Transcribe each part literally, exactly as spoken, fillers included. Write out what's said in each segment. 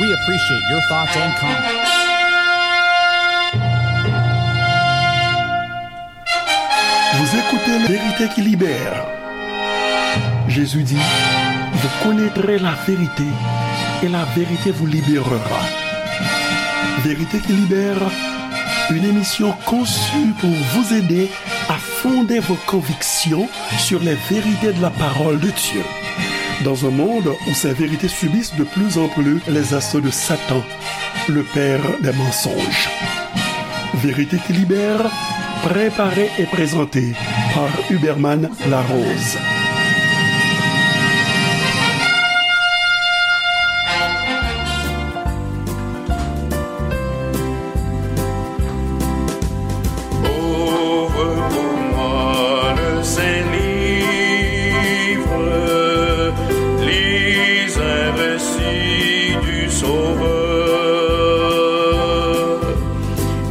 We appreciate your thoughts and comments. Vous écoutez La Vérité qui libère. Jésus dit, vous connaîtrez la vérité et la vérité vous libérera. Vérité qui libère, une émission conçue pour vous aider à fonder vos convictions sur les vérités de la parole de Dieu. Dans un monde où ces vérités subissent de plus en plus les assauts de Satan, le père des mensonges. Vérité qui libère, préparée et présentée par Huberman Larose. Ouvre pour moi le saint livre, lis un récit du Sauveur.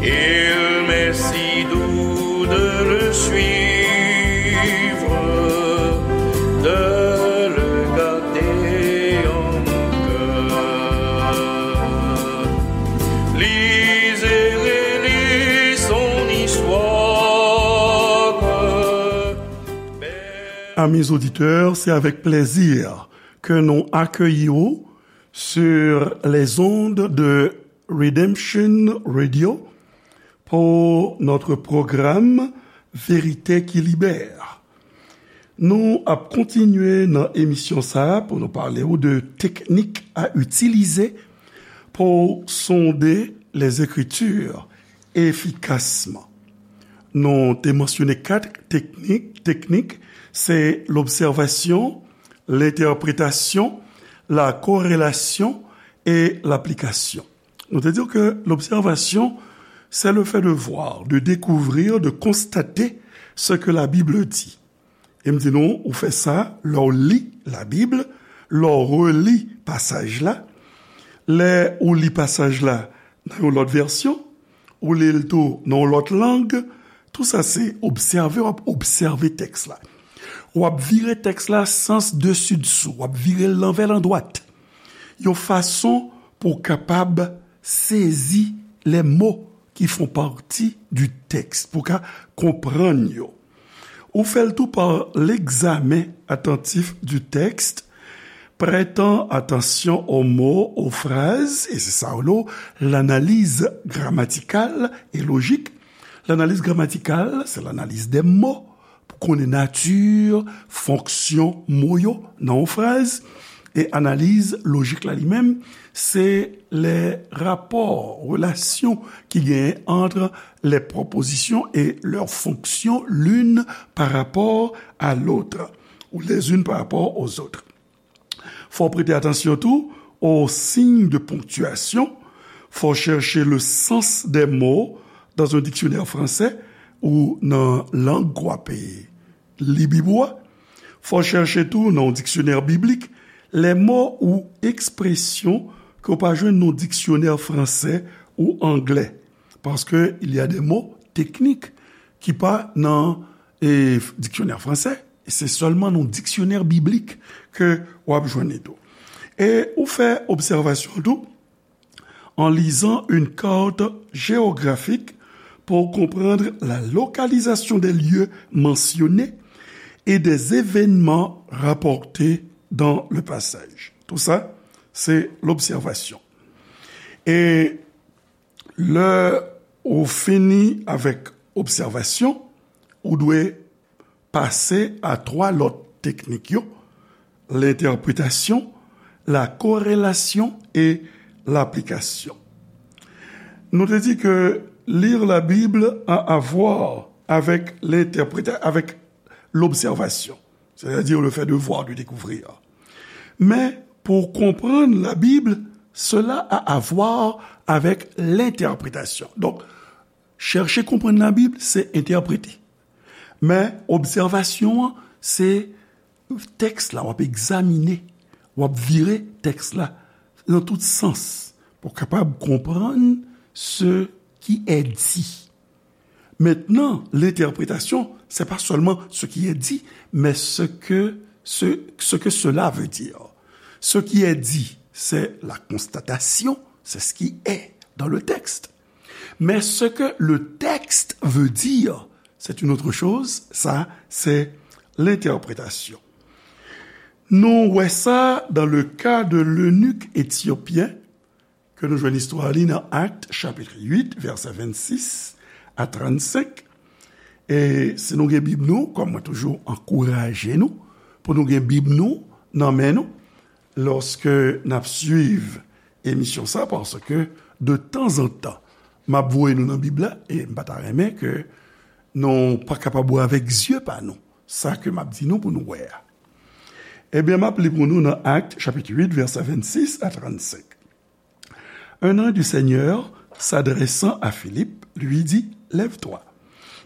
Il m'est si doux de le suivre, de le garder en mon cœur. Lis et relis son histoire. Amis auditeurs, c'est avec plaisir que nous accueillons sur les ondes de Redemption Radio pour notre programme Vérité qui libère. Nou ap kontinye nan emisyon sa a pou nou pale w de teknik a itilize pou sonde les Écritures efikasman. Nou te mansyone kat teknik, teknik, se l'observation, l'interprétation, la corrélation et l'application. Nou te di ke l'observation, c'est le fait de voir, de découvrir, de constater ce que la Bible dit. E m di nou, ou fè sa lè w li Labib, lè w reli pasaj la, lè ou li pasaj la nan yon lòt vèsyon, ou li l tou nan yon lòt lang, tou sa se obsève, w ap obsève tèks la. W ap vire tèks la sans desi dsou, w ap vire l lanvè landwat. Yon fason pou w kapab sezi les mots qui font partie du texte, pou w ka konprann yo. Ou fè l tou par l'examen attentif du texte, prêtant attention aux mots, aux phrases, e se sa w rele l'analyse grammaticale et logique. L'analyse grammaticale, c'est l'analyse des mots, pou konnen nati, fonksyon mo yo nan yon fraz. E analiz lojik la li menm, se les rapports, relasyon ki genyen entre les propositions et leurs fonctions l'une par rapport à l'autre, ou les unes par rapport aux autres. Fò w prete atansyon tou aux signes de ponctuation. Fò w chèche le sens des mots dans un dictionnaire français ou nan lang w ap li Bib ou a. Fò w chèche tou nan yon diksyonè biblik les mots ou expressions ke w pa jwenn nan yon diksyonè fransè ou anglè. Paske il y a des mots techniques ki pa nan, e, diksyonè fransè. E se sèlman nan yon diksyonè biblik ke w ap jwenn li tou. E ou fè obsèvasyon tou en lisant une carte géographique pour comprendre la localisation des lieux mentionnés et des événements rapportés dans le passage. Tout ça, c'est l'observation. E lè ou fini avèk obsèvasyon, ou dwe pase a twa lòt teknik yo, l'interprétation, la corrélation et l'application. Nou te di ke lire la Bible a à voir avec l'interpréta-, avec l'observation, c'est-à-dire le fait de voir, de découvrir. Mais pour comprendre la Bible, cela a à voir avec l'interprétation. Donc, chercher comprendre la Bible, c'est interpréter. Men obsèvasyon an, se tèks la, w ap egzamine, w ap vire tèks la nan tout sans pou w kapab konprann ce qui est dit. Maintenant, l'interprétation, c'est pas seulement ce qui est dit, mais ce que, ce, ce que cela veut dire. Ce qui est dit, c'est la constatation, c'est ce qui est dans le texte. Mais ce que le texte veut dire, c'est une autre chose, ça, c'est l'interprétation. Nou wè sa dans le cas de l'eunuque éthiopien, ke nou jwenn istwa li nan Actes, chapitre huit, verset vingt-six à trente-cinq. E si nou gen Bib nou, kòm mwen toujou ankouraje nou, pou nou gen Bib nou nan men nou, lòske n ap swiv emisyon sa, paske de tanzantan, m ap voye nou nan Bib la, e m pa ta renmen ke nou pa kapab wè avèk zye pa nou sa ke m ap di nou pou nou wè a. Ebyen, m ap li pou nou nan Actes, chapitre huit, verset vingt-six à trente-cinq. Un ange du Seigneur, s'adressant à Philippe, lui dit : « Lève-toi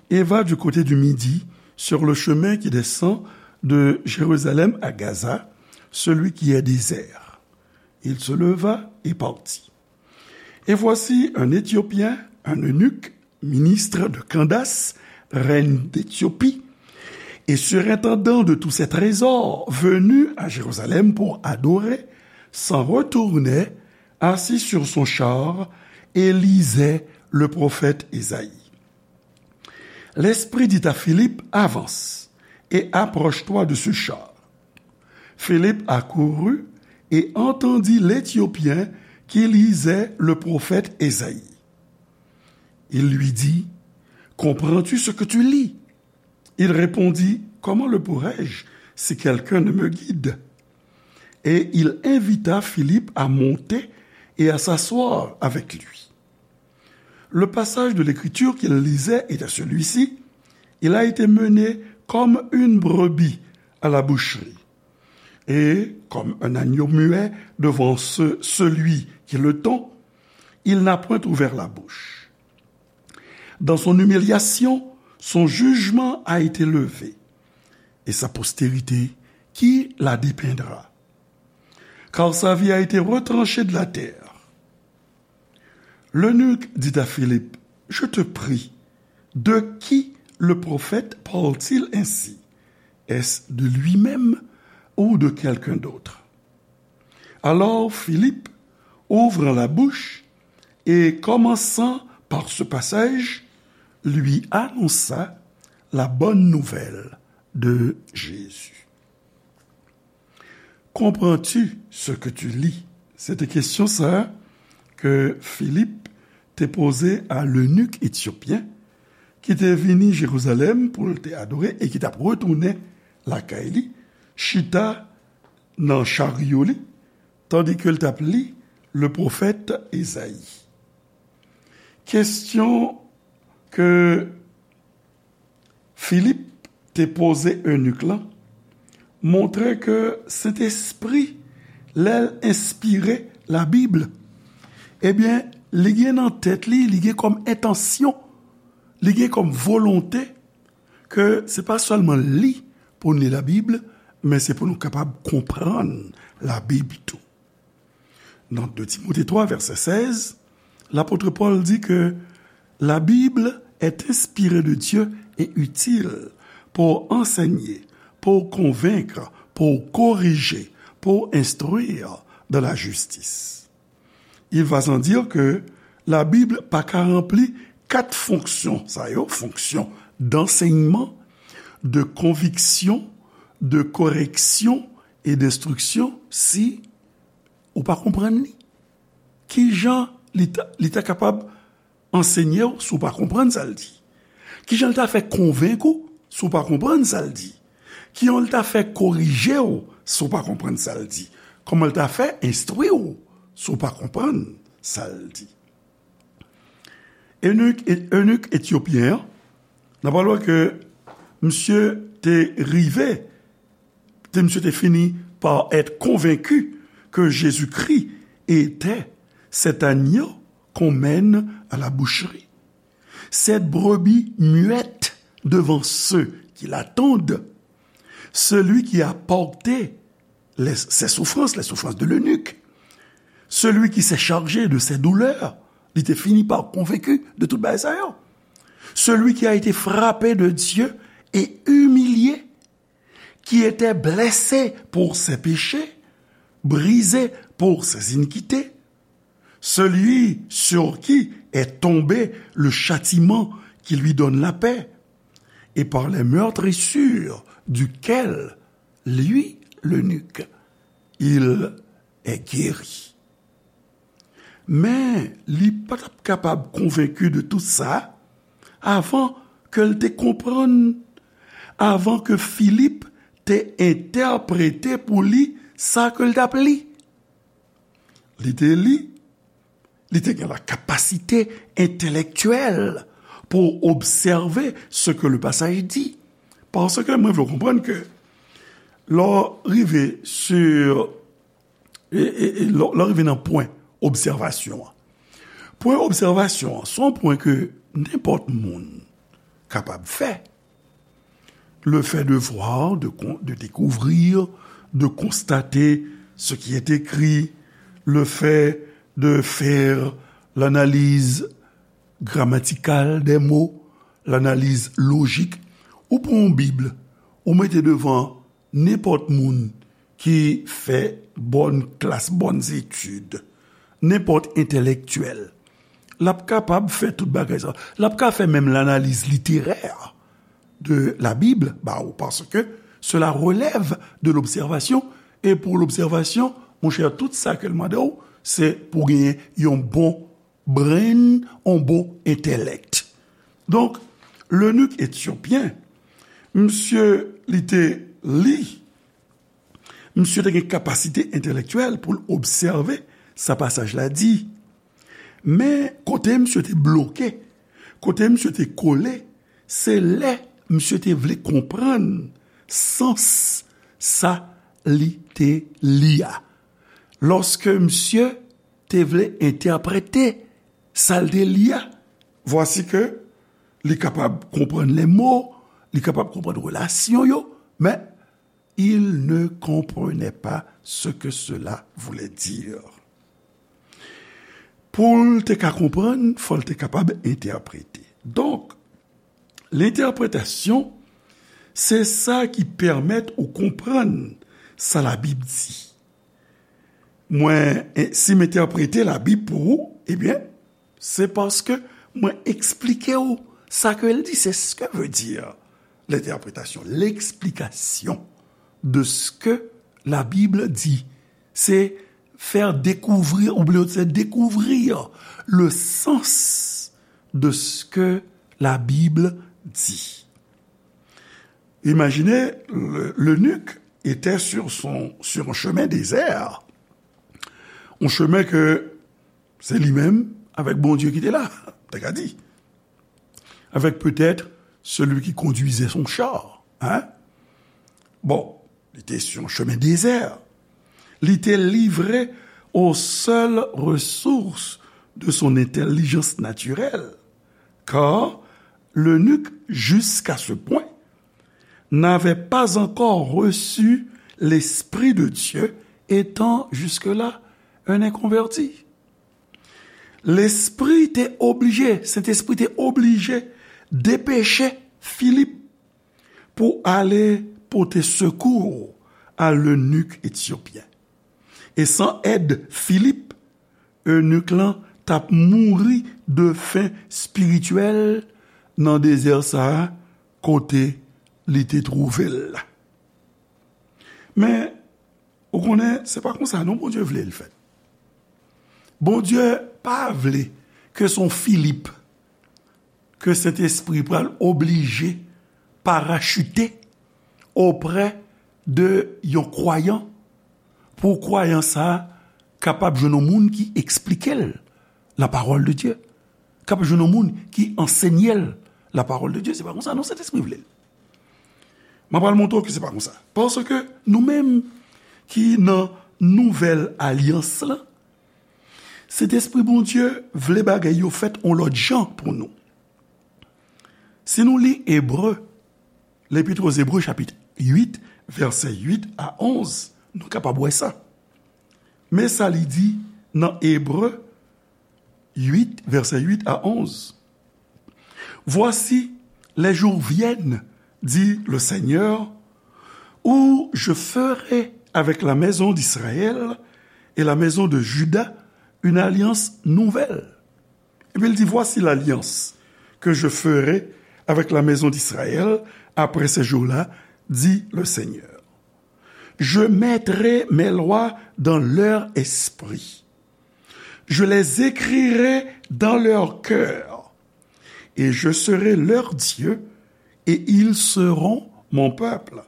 et va du côté du Midi, sur le chemin qui descend de Jérusalem à Gaza, celui qui est désert. » Il se leva et partit. Et voici un Éthiopien, un eunuque, ministre de Candace, reine d'Éthiopie, et surintendant de tous ses trésors, venu à Jérusalem pour adorer, s'en retournait, assis sur son char, et lisait le prophète Ésaïe. L'Esprit dit à Philippe : « Avance et approche-toi de ce char. » Philippe accourut et entendit l'Éthiopien qui lisait le prophète Ésaïe. Il lui dit : « Comprends-tu ce que tu lis ? » Il répondit : « Comment le pourrais-je si quelqu'un ne me guide ? » Et il invita Philippe à monter et à s'asseoir avec lui. Le passage de l'Écriture qu'il lisait était celui-ci : « Il a été mené comme une brebis à la boucherie, et comme un agneau muet devant ce- celui qui le tond, il n'a point ouvert la bouche. Dans son humiliation, son jugement a été levé, et sa postérité, qui la dépeindra ? Car sa vie a été retranchée de la terre. » L'eunuque dit à Philippe : « Je te prie, de qui le prophète parle-t-il ainsi ? Est-ce de lui-même ou de quelqu'un d'autre ? » Alors Philippe, ouvrant la bouche et commençant par ce passage, lui annonça la bonne nouvelle de Jésus. « Comprends-tu ce que tu lis ? » Se te kesyon sa a ke Filip te poze a lenik etyopyen ki te vini Jerizalèm pou l te adore e ki t ap retounen lakay li, chita nan charyo li, tandi ke l t ap li le pwofèt Ezayi. Kesyon ke Filip te poze enik lan montre ke Sentespri, lè l enspire Labib, ebyen, li gen nan tèt li, li gen kòm entansyon, li gen kòm volonte ke se pa sèlman li pou n li Labib, men se pou nou kapab konprann Labib tou. Dans deux Timothée trois, verset seize, l'apôtre Paul dit que la Bible est inspirée de Dieu et utile pour enseigner, pour convaincre, pour corriger, pour instruire dans la justice. Il va sans dire que la Bible pa ka ranpli kat fonksyon sa yo, fonksyon d'ansèyman, de konviksyon, de koreksyon e denstriksyon, si ou pa konprann li. Kijan li ta, li ta kapab ansenye w si w pa konprann sa l di? Kijan l ta fè konvenk ou si w pa konprann sa l di? Kijan l ta fè korije w si w pa konprann sa l di? Kòman l ta fè enstwi w si w pa konprann sa l di? Enik, enik etyopyen an, n ap wè ke misye te rive, te, misye te fini par être convaincu que Jésus-Christ était cet agneau qu'on mène à la boucherie, cette brebis muette devant ceux qui l'attendent, celui qui a porté les, ses souffrances, les souffrances de l'eunuque, celui qui s'est chargé de ses douleurs. Li te fini pa konvenki de tout bagay sa yo. Celui qui a été frappé de Dieu et humilié, qui était blessé pour ses péchés, brisé pour ses iniquités, celui sur qui est tombé le châtiment qui lui donne la paix, et par les meurtrissures duquel, lui, l'eunuque, il est guéri. Men, li pa t ap kapab konvenki de tout sa avan ke l te konprann, avan ke Filip te entèprete pou li sa ke l t ap li. Li te li, li te gen la kapasite entèlektyèl pou obsève ce que le passage dit. Paske mwen vle w konprann ke lè w rive sur, e, e, e, lè, lè w rive nan pwen obsèvasyon an. Pwen obsèvasyon an, se yon pwen ke nenpòt moun kapab fè. Le fait de voir, de con-, de découvrir, de constater ce qui est écrit, le fait de faire l'analyse grammaticale des mots, l'analyse logique, ou pran yon Bib, ou mete devan nenpòt moun ki fè bòn klas, bòn etid, nenpòt entèlektyèl, l ap kapab fè tout bagay sa. L ap ka fè menm l'analyse littéraire de la Bible ba ou, parce que cela relève de l'observation, et pour l'observation, monchè, tout sa ke l mande w, se pou genyen yon bon brain, yon bon entèlèk. Donk, lenik etyopyen, misye, li te li, misye te gen kapasite entèlektyèl pou l obsève sa pasaj la di. Men, kote misye te bloke, kote misye te kole, se lè misye te vle konprann sans sa li te li a. Lòske misye te vle entèprete sa l te li a, vwasi ke li kapab konprann les mots, li kapab konprann relasyon yo, men il ne comprenait pas ce que cela voulait dire. Pou l te ka konprann, fò l te kapab entèprete. Donk, lentèpretasyon, se sa ki pèmèt ou konprann sa Labib di. Mwen, e, si m entèprete Labib pou ou, ebyen, se paske mwen eksplike w sa ke l di. C'est ce que veut dire l'interprétation, l'explication de ce que la Bible dit. C'est faire découvrir, ou bien c'est découvrir le sens de ce que la Bible dit. Imaginez, le, l'eunuque était sur son, sur un chemin désert. Un chemin que c'est lui-même, avec Bondye ki te la, te ka di. Avec peut-être celui qui conduisait son char, hein? Bon, li te sur un chemin désert. Li te livre aux seules ressources de son intelligence naturelle, car l'eunuque, jusqu'à ce point, n'avait pas encore reçu l'Esprit de Dieu, étant jusque-là un inconverti. Lespri te oblije, Sentespri te oblije depeche Filip pou ale pote sekou a lenik etyopyen. E san èd Filip, enik lan t ap mouri de fen espirityèl nan dezè sa a kote li te twouve l la. Men, ou konnen, se pa konsa non Bondye vle l fèt. Bondye pa vle ke se yon Filip ke Sentespri pral oblije parachite oprè de yon kwayan, pou kwayan sa a kapab jwenn yon moun ki eksplike l la parole de Dieu, kapab jwenn yon moun ki ansenye l la parole de Dieu. Se pa konsa non Sentespri vle l. M ap al montre w ke se pa konsa. Paske nou menm ki nan nouvèl alyans lan, Sentespri Bondye vle bagay yo fèt yon lòt jan pou nou. Si nou li Ebre, L'Épître aux Hébreux, chapitre huit, versets huit à onze, nou kapab wè sa. Men sa li di nan Ebre huit, versets huit à onze. Voici, les jours viennent, dit le Seigneur, où je ferai avec la maison d'Israël et la maison de Juda une alliance nouvelle. Et puis il dit, voici l'alliance que je ferai avec la maison d'Israël après ces jours-là, dit le Seigneur. Je mettrai mes lois dans leur esprit. Je les écrirai dans leur cœur. Et je serai leur Dieu, et ils seront mon peuple.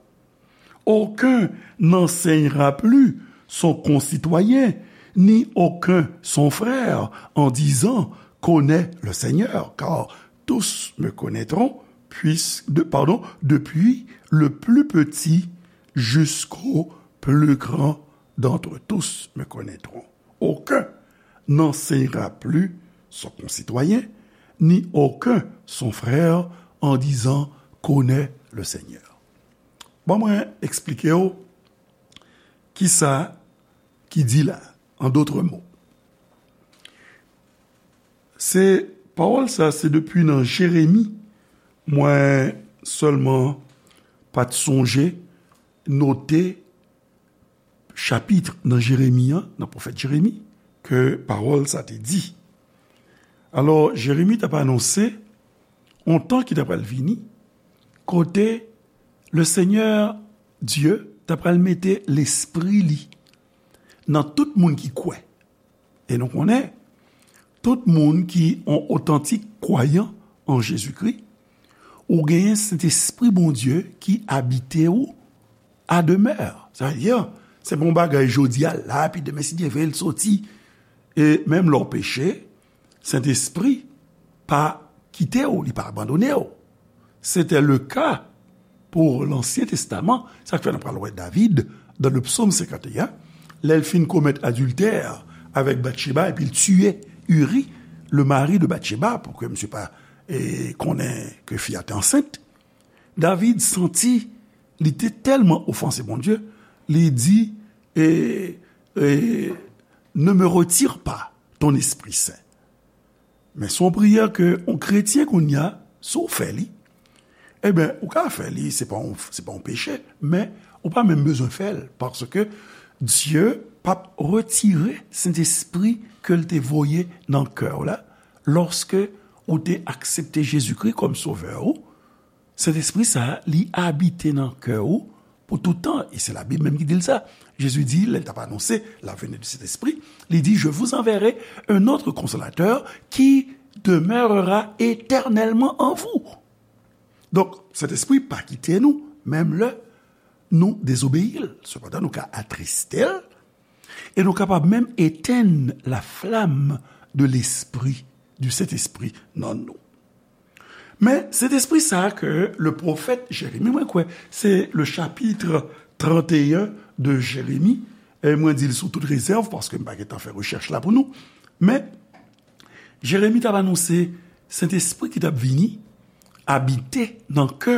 Aucun n'enseignera plus son concitoyen, ni aucun son frère, en disant, connais le Seigneur, car tous me connaîtront, puis, de, pardon, depuis le plus petit jusqu'au plus grand d'entre tous me connaîtront. Aucun n'enseignera plus son concitoyen, ni aucun son frère, en disant, connais le Seigneur. Bon, mwen eksplike w kisa ki di la, en d'autres mots. Se pawòl sa, se depi nan Jeremi, mwen sèlman pa t sonje note chapit nan Jeremi an, nan pwofèt Jeremi, ke pawòl sa te di. Alò, Jeremi t ap anonse yon tan ki ta pral vini, kote le Seigneur Dieu ta pral mete lespri li nan tout moun ki kwè. E nou konnen, tout moun ki yon otantik kwayan an Jezikri, ou genyen Sentespri Bondye ki abite w a demè. Sa vle di, se pa yon bagay jodi a la, epi demen, si Dye vle, l soti. E menm lè w peche, Sentespri pa kite w, li pa abandone w. C'était le cas pour l'Ancien Testament. Sa k fè n ap pral wè David, dans le psaume cinquante et un, lè l fin komèt adiltè avèk Batcheba, epi l tiye Uri, le mari de Batcheba, pou ke misye pa, e, konnen ke fi a te ansent. David santi li te tèlman ofanse Bondye, li di, e, e, ne me retire pas ton Esprit Saint. Men se yon priyè ke yon kretyen kounye a, si w fè li, ebyen, ou ka fè li, se pa yon, se pa yon peche, men ou pa menm bezwen fè l, paske Dye p ap retire Sentespri ke l te voye nan kè w la, lòske ou te aksepte Jezikri kòm Sovè ou. Sentespri sa a, li abite nan kè ou pou tout tan, e se Labib menm ki di l sa. Jezi di, lè l t ap anonse la venue du Saint-Esprit, li di, je vous enverrai un autre consolateur qui demeurera éternellement en vous. Donk, Sentespri pa kite nou, menm lè nou dezobeyi l. Sepandan, nou ka atriste l, e nou kapab menm etenn la flamme de l'esprit, du Saint-Esprit nan nou. Men, Sentespri sa a ke le pwofèt Jeremi, mwen kwè, se le chapitre trente et un de Jeremi, e mwen di l sou tout rezèv, paske m pa gentan fè rechèch la pou nou, men Jeremi t ap anonse Sentespri ki t ap vini abite nan kè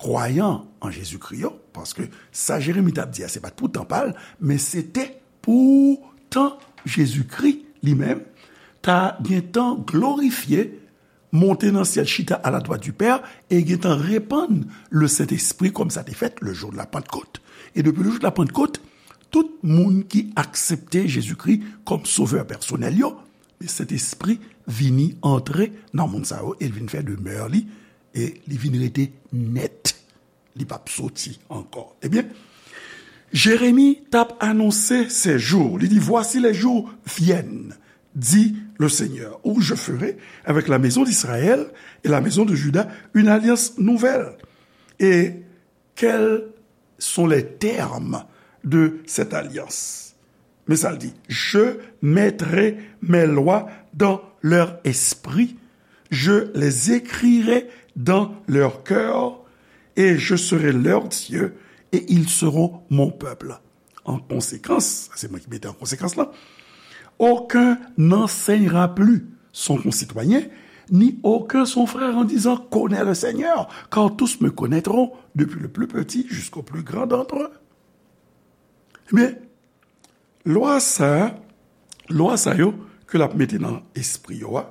kwayan an Jezikri yo, paske sa Jeremi t ap di a, se pa t pou tan pa l, men se te pou tan Jezikri li menm ta gentan glorifye, monte nan syèl, chita à la droite du Père, e gentan repann le Saint-Esprit, kòm sa te fèt le jour de la Pentecôte. E depi le jour de la Pentecôte, tout moun ki aksepte Jezikri kòm Sovè pèsonèl yo, men Sentespri vini antre nan moun sa yo, e l vin fè demè li, e li vin rete nèt. Li p ap soti ankò. Ebyen, Jeremi t ap anonse ces jours. Li di, voici les jours viennent, dit le Seigneur, où je ferai avec la maison d'Israël et la maison de Juda une alliance nouvelle. Et quels sont les termes de cette alliance? Men sa l di, je mettrai mes lois dans leur esprit, je les écrirai dans leur cœur, et je serai leur Dieu, et ils seront mon peuple. An konsekans, se mwen ki mete an konsekans la, aucun n'enseignera plus son concitoyen, ni aucun son frère en disant, connais le Seigneur, car tous me connaîtront, depuis le plus petit jusqu'au plus grand d'entre eux. Ebyen, lwa sa, lwa sa yo ke l ap mete nan espri yo a,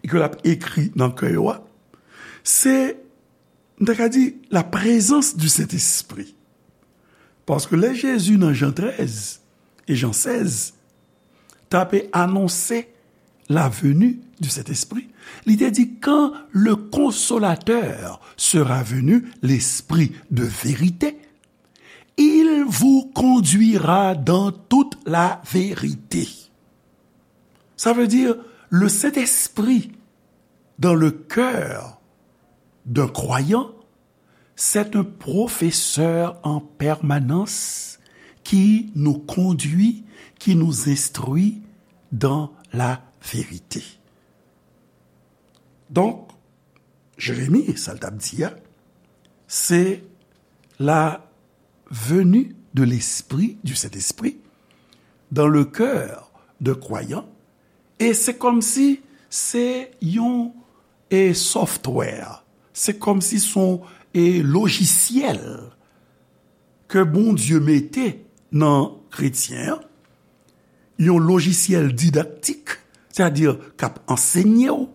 e ke l ap ekri nan kè yo a, se, m ta ka di, la présence du Saint-Esprit. Paske lè Jezi nan Jan trèz, e Jan sèz, t ape anonse la venue du Saint-Esprit, li te di, quand le Consolateur sera venu, l'Esprit de vérité, il vous conduira dans toute la vérité. Ça veut dire, le Saint-Esprit dans le cœur d'un croyant, c'est un professeur en permanence qui nous conduit, qui nous instruit dans la vérité. Donk, Jeremi, sa l t ap di a, se la venue de l'Esprit, du Saint-Esprit, dans le cœur de croyant, e se kòmsi se yon e software, se kòmsi se yon e lojisyèl ke Bondye mete nan kretyen an, yon lojisyèl didaktik, sètadi k ap ansenye w,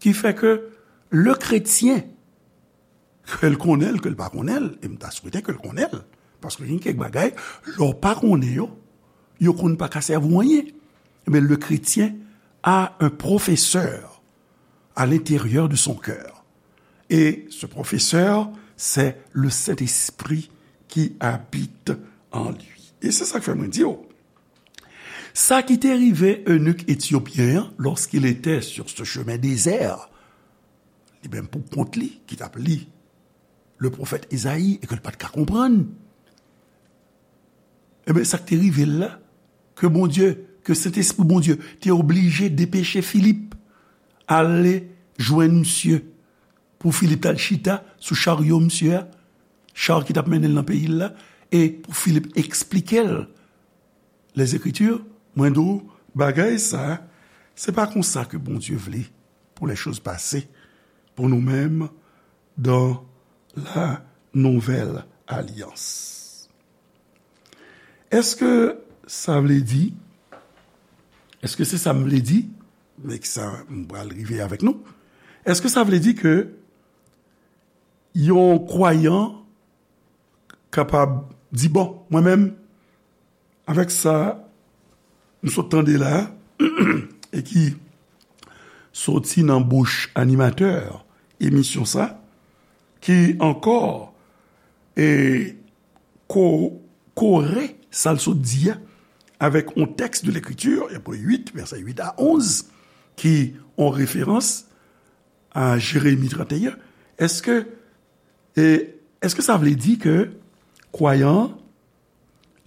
ki fè ke le kretyen, ke l konnen l, ke l pa konnen l, e m ta swete ke l konnen l, paske gen kèk bagay, lè w pa konnen yo, yo konn pa ka sèvi w anyen. Ebyen, le chrétien a un professeur à l'intérieur de son cœur. Et ce professeur, c'est le Saint-Esprit qui habite en lui. E se sa k fè mwen di w, sa ki te rive eunik etyopyen an, lorsqu'il était sur ce chemin désert, li menm pou kont li, ki t ap li le pwofèt Ezayi, e ke l pa t ka konprann. Ebyen, sa k te rive l la, ke Bondye, ke Sentespri Bondye te oblije depeche Filip ale jwenn misye, pou Filip t al chita sou charyo misye a, cha ki t ap mennen l nan peyi l la, e pou Filip eksplike l Lèzekriti, mwen di w, bagay sa, se pa konsa ke Bondye vle pou les choses passées, pou nou menm, dans la nouvelle alliance. Èske sa vle di, èske se sa m vle di, men ki sa m pral rive avèk nou, èske sa vle di ke yon kwayan kapab di, bon, mwen menm, avèk sa m sot tande la, e ki soti nan bouch animatè emisyon sa, ki ankò e ko-, kore sa l sot di a avèk yon tèks de Lekriti, Ebre uit, vèsè uit a onz, ki yon referans a Jeremi trannteyen. Èske, e, èske sa vle di ke kwayan an,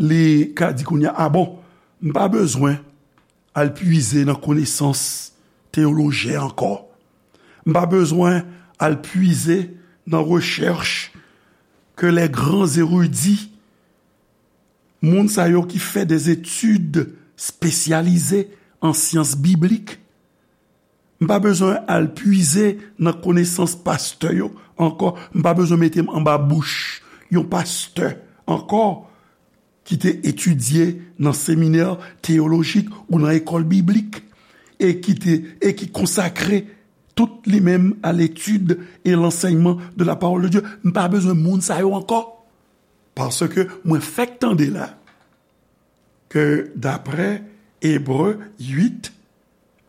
li ka di kounye a, a bon, m pa bezwen al pwize nan konesans teyolojyen ankò. M pa bezwen al pwize nan rechèch ke les grands érudits, moun sa yo ki fè des études spécialisées en sciences bibliques, m pa bezwen al pwize nan konesans pastè yo ankò. M pa bezwen mete m anba bouch yon pastè ankò ki te etidye nan seminè teyolojik ou nan ekòl biblik e ki te, e ki konsakre tout li menm à l'étude et l'enseignement de la parole de Dieu. M pa bezwen moun sa yo ankò. Paske mwen fèk tande la ke daprè Ebre uit,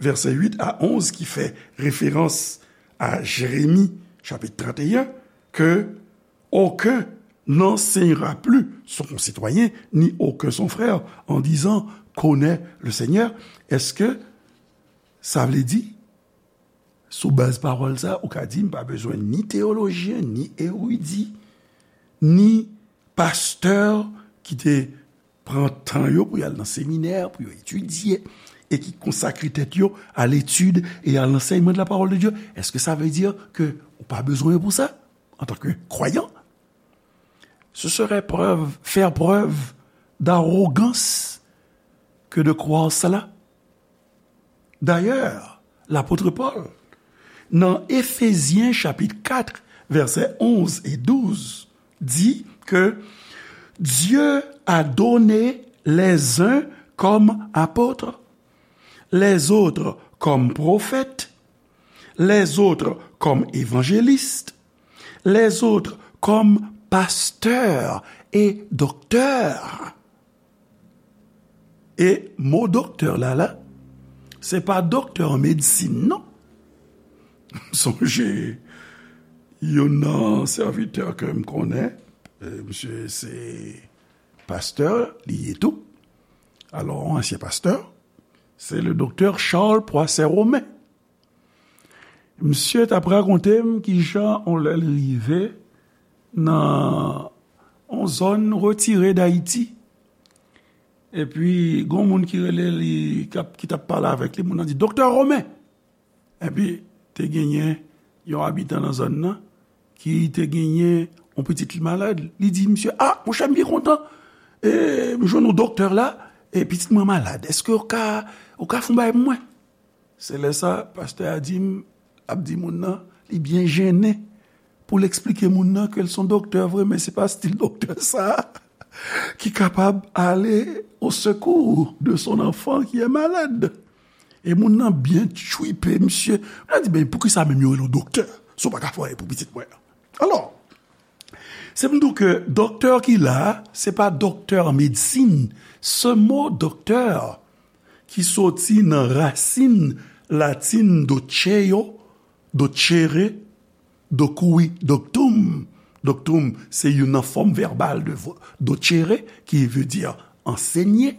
vèsè uit a onz, ki fè referans a Jeremi, chapit trannteyen, ke aucun n'enseignera plus son concitoyen, ni aucun son frère, en disant, connais le Seigneur. Èske sa vle di, sou baz pawòl sa, ou ka di, m pa bezwen ni teyolojyen, ni eridi, ni pastè ki te pran tan yo pou y al nan seminè, pou yo etidye, e ki konsakre tèt yo à l'étude et à l'enseignement de la parole de Dieu. Èske sa vle di ke ou pa bezwen yo pou sa, antanke kwayan? Ce serait preuve, faire preuve d'arrogance que de croire cela. D'ailleurs, l'apôtre Paul, nan Efezyen chapit kat, vèsè onz e douz, di ke Dieu a donné les uns comme apôtres, les autres comme prophètes, les autres comme évangélistes, les autres comme pasteurs et docteurs. E mo doktè la la, se pa doktè an medsin, non. M sonje youn nan sèvitè ke m konnen, e, misye se pastè, li ye tou. Alò, yon ansyen pastè, se le doktè Charles Poisson Romain. Misye t ap rakonte m kijan yon lè l rive nan yon zòn retire d Ayiti. Epi, gon moun ki rele li, k ap, ki t ap pale avèk li, moun nan di, "Doktè Romain!" Epi, te genyen yon abitan nan zòn nan ki te genyen yon pitit li malad. Li di, "Misye, a, monchè, m byen kontan. E, m jwenn yon doktè la, e pitit mwen malad. Èske w ka, w ka fè yon bagay pou mwen?" Se lè sa, pastè a di m, ap di moun nan, li byen jennen pou l eksplike moun nan ke l se yon doktè vre, men se pa stil doktè sa a ki kapab aller au secours de son enfant qui est malade. E moun nan byen tchwipe, misye. Moun nan di, "Ben, poukisa menm yo rele w doktè, si w pa ka fè anyen pou pitit mwen an?" Alò, se pou m di w ke doktè ki la a, se pa doktè an medsin. Se mo doktè ki soti nan rasin latin doceo, docere, docui, doctum. Doctum, se youn nan fòm vèbal de vo-, docere, qui veut dire enseigner.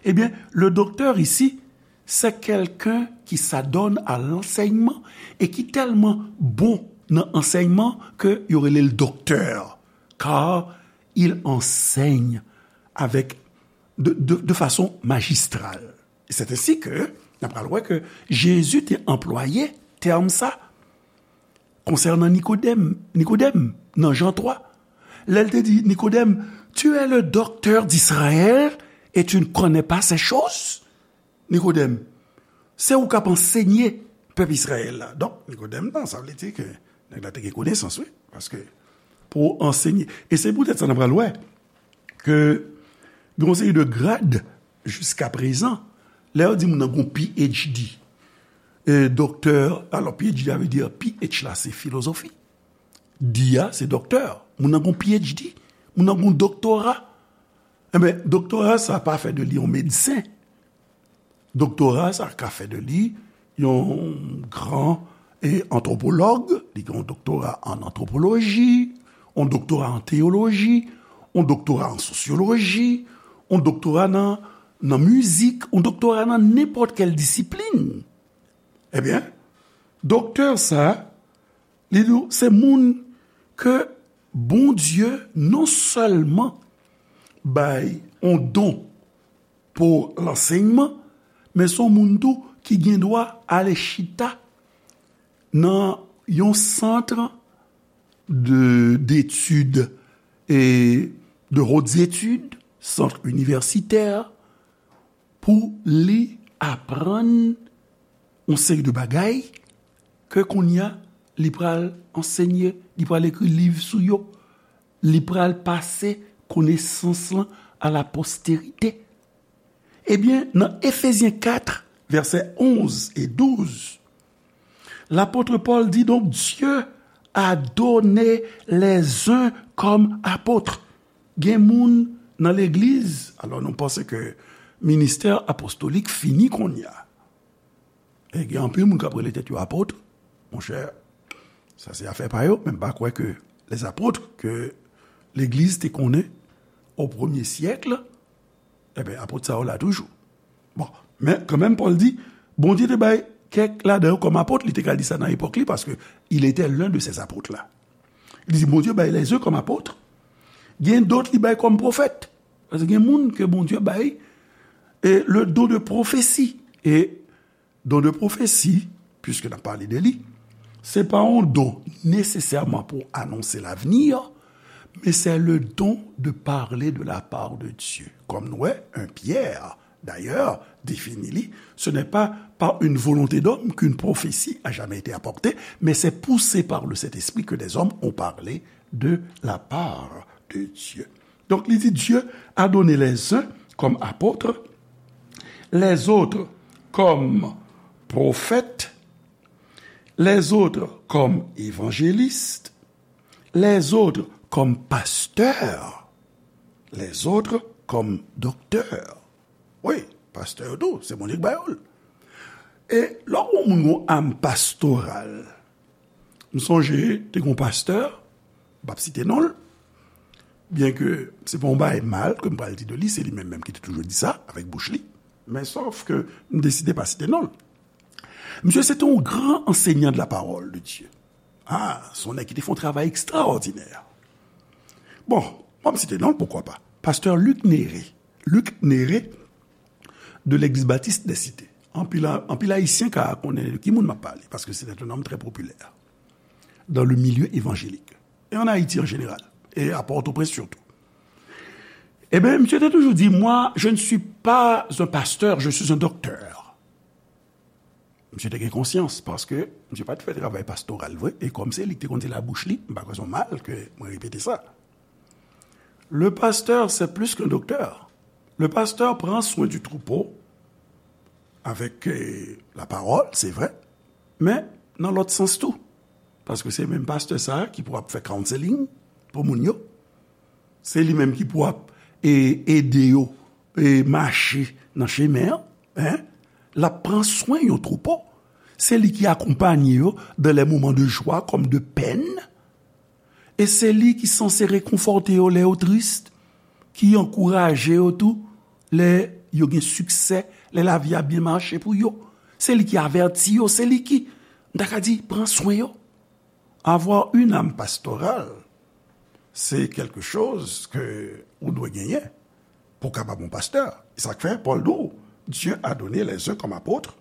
Ebyen, le docteur ici, c'est quelqu'un qui s'adonne à l'enseignement et qui tellement bon nan ansèyman ke yo rele l doktè, car il enseigne avec, de, de, de façon magistrale. Et c'est ainsi que, n ap pral wè ke Jezi te anplwaye tèm sa konsènan Nikodèm, Nikodèm, nan Jan twa. Lè l te di, "Nikodèm, tu es le docteur d'Israël et tu ne connais pas ces choses?" Nikodèm, se ou k ap ansenye pèp Izrayèl la. Donk, Nikodèm nan, sa vle di ke nèg la te gen konesans, wi. Paske pou ansenye. E se poutèt sa n ap pral wè ke gen yon seri de grad jiska prezan, lè yo di moun nan gon P H D, e, doktè, alò P H D a vle di P H la se filozofi. D a se doktè. Moun nan gon P H D, moun nan gon doktora. Enben, doktora sa pa fè de li yon medsen. Doktora sa ka fè de li yon gran, e, antwopològ, li gen yon doktora an antwopoloji, yon doktora an teyoloji, yon doktora an sosyoloji, yon doktora nan, nan mizik, yon doktora nan nenpòt kèl disiplin. Ebyen, doktè sa, li di w, se moun ke Bondye non sèlman bay yon don pou lansegnman, men se yon moun tou ki gen dwa ale chita nan yon sant de, d'études et de hautes études, sant inivèsitè, pou li aprann yon seri de bagay ke kounye a li pral ansenye, li pral ekri liv sou yo, li pral pase konesans lan a la postérité. Ebyen, nan Efezyen kat, vèsè onz e douz, lapot Pòl di, donc, Dieu a donné les uns comme apôtres. Gen moun nan legliz, alò nou panse ke ministè apostolik fini kounye a. E gen anpil moun k ap rele tèt yo apot. Monchè, sa se afè pa yo, men m pa kwè ke les apôtres ke legliz te konnen o premye syèk, enben, apot sa yo la toujou. Bon, men kanmenm, Pòl di, Bondye te bay kèk ladan yo kòm apot, li te ka di sa nan epòk li, paske il était l'un de ces apôtres-là. Li di, Bondye bay les uns comme apôtres, gen dòt li bay kòm pwofèt. Paske gen moun ke Bondye bay, e, le don de prophétie. E don de prophétie, puisque n ap pale de li, se pa yon don nesesèman pou anonse l'avenir, mais c'est le don de parler de la part de Dieu. Kòm nou wè, un Pyè, d'ailleurs, définit li, ce n'est pas par une volonté d'homme qu'une prophétie a jamais été apportée, mais c'est poussé par le Saint-Esprit que des hommes ont parlé de la part de Dieu. Donc, li di, Dieu a donné les uns comme apôtres, les autres comme prophètes, les autres comme évangélistes, les autres comme pasteurs, les autres comme docteurs. Wi, pastè yo tou, se Bondye ki ba yo l. E lè w wè yon moun gen yon am pastoral, m sonje te gen yon pastè, m p ap site non l, byen ke se pa yon bagay mal ke m pral di de li, se li menm menm ki te toujou di sa avèk bouch li, men sòf ke m deside pa site non l. Misye se te yon gran ansenyan de la parole de Dieu. Ah, se yon nèg ki te fè yon travay ekstraòdinè. Bon, m ap site non l, poukwa pa. Pastè Luc Néré. Luc Néré de Legliz Batis dè Site. Anpil, anpil Ayisyen ka konnen de ki moun m ap pale, paske se te yon nonm trè popilè dans le milieu évangélique. Et en Haïti en général. Et à Port-au-Prince surtout. Eben, misye te toujou di, moi, je ne suis pas un pasteur, je suis un docteur. Misye te gen konsyans, paske misye pa t fè travay pastoral vre, e kòm se li ki te konn se labouch li, m pa kwè se yon mal ke mwen repete sa. Le pasteur, c'est plus qu'un docteur. Le pasteur prend soin du troupeau avec, euh, la parole, c'est vrai, men nan lòt sans tou. Paske se menm pastè sa a ki pou ap fè counseling pou moun yo. Se li menm ki pou ap, e, ede yo, e, mache nan chemen an, en. L ap pran swen yon twoupo. Se li ki akonpanye yo dans les moments de joie comme de peine. E se li ki sanse rekonfòte yo lè yo tris, ki ankouraje yo tou lè yo gen siksè, lè lavi a byen mache pou yo. Se li ki avèti yo, se li ki, m ta ka di, pran swen yo. Avoir une âme pastorale, c'est quelque chose que ou dwe genyen pou w kapab yon pastè. E sa k fè Pòl di w, Dieu a donné les uns comme apôtres,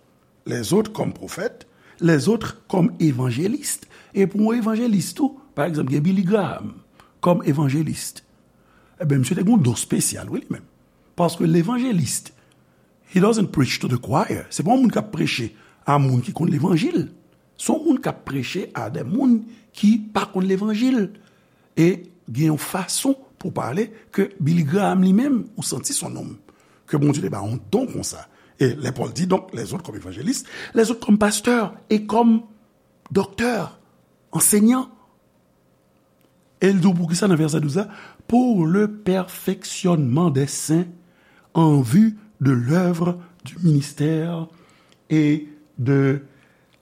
les autres comme prophètes, les autres comme évangélistes. E pou yon evanjelis tou, pa egzanp, gen Billy Graham kòm evanjelis. Eben, misye te gen yon don espesyal, wi, li menm. Paske levanjelis, he doesn't preach to the choir. Se pa yon moun k ap preche a moun ki konn levanjil. Se yon moun k ap preche a de moun ki pa konn levanjil. E gen yon fason pou pale ke Billy Graham li menm, ou santi se yon nonm ke Bondye te ba yon don konsa. E lè Pòl di, donc, les autres comme évangélistes, les autres comme pasteurs et comme docteurs, enseignants. E l di w poukisa nan vèsè douz la, pour le perfectionnement des saints en vue de l'œuvre du ministère et de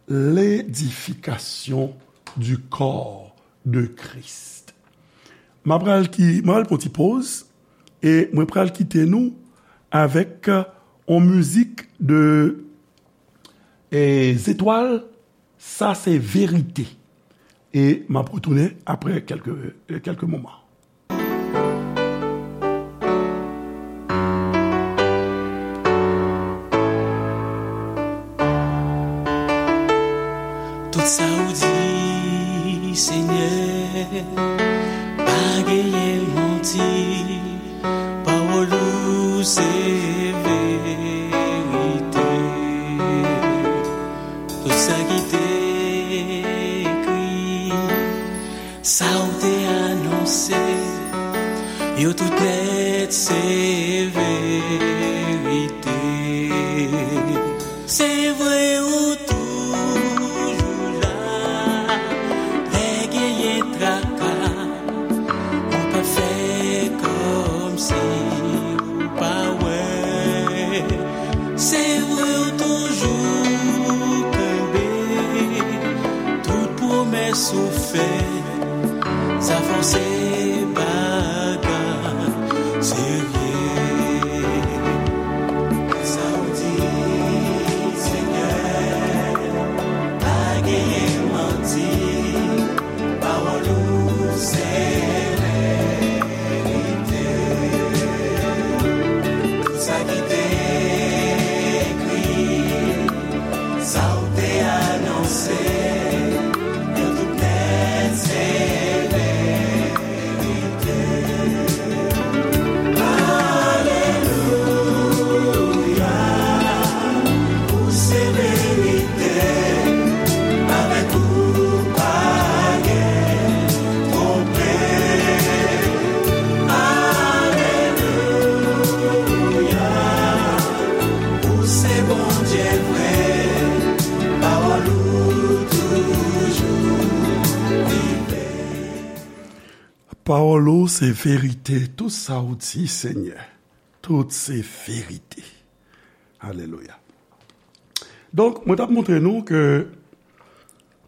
l'édification du corps de Christ. M ap pral ki, m ap pral pran ti poz e mwen pral kite nou avèk, euh, on mizik de, eh, Zetwal, Sa se verite. E m ap retounen apre kèlke, kèlke moman. Tout sa ou di, Senyè, pa genyen manti. Pawòl ou se verite. Tout sa ki te ekri, sa ou te anonse, yo tout nèt se verite. Se vre ou toujou la, lè genyen traka, ou pa fè kòmsi ou pa wè. Se vre ou toujou kenbe tout pwomès ou fè. Sa fò se bagay serye. Sa ou di, Senyè, pa genyen manti. Pawòl ou se verite. Tout sa ki te ekri, sa ou te anonse, yo tout nèt se verite. Alelouya, ou se verite, avèk ou pa gen twonpe. Alelouya, ou se Bondye vre, pawòl ou toujou rive. Pawòl ou se verite, tout sa ou di, Senyè, tout se verite. Alelouya. Donk, mwen t ap montre nou ke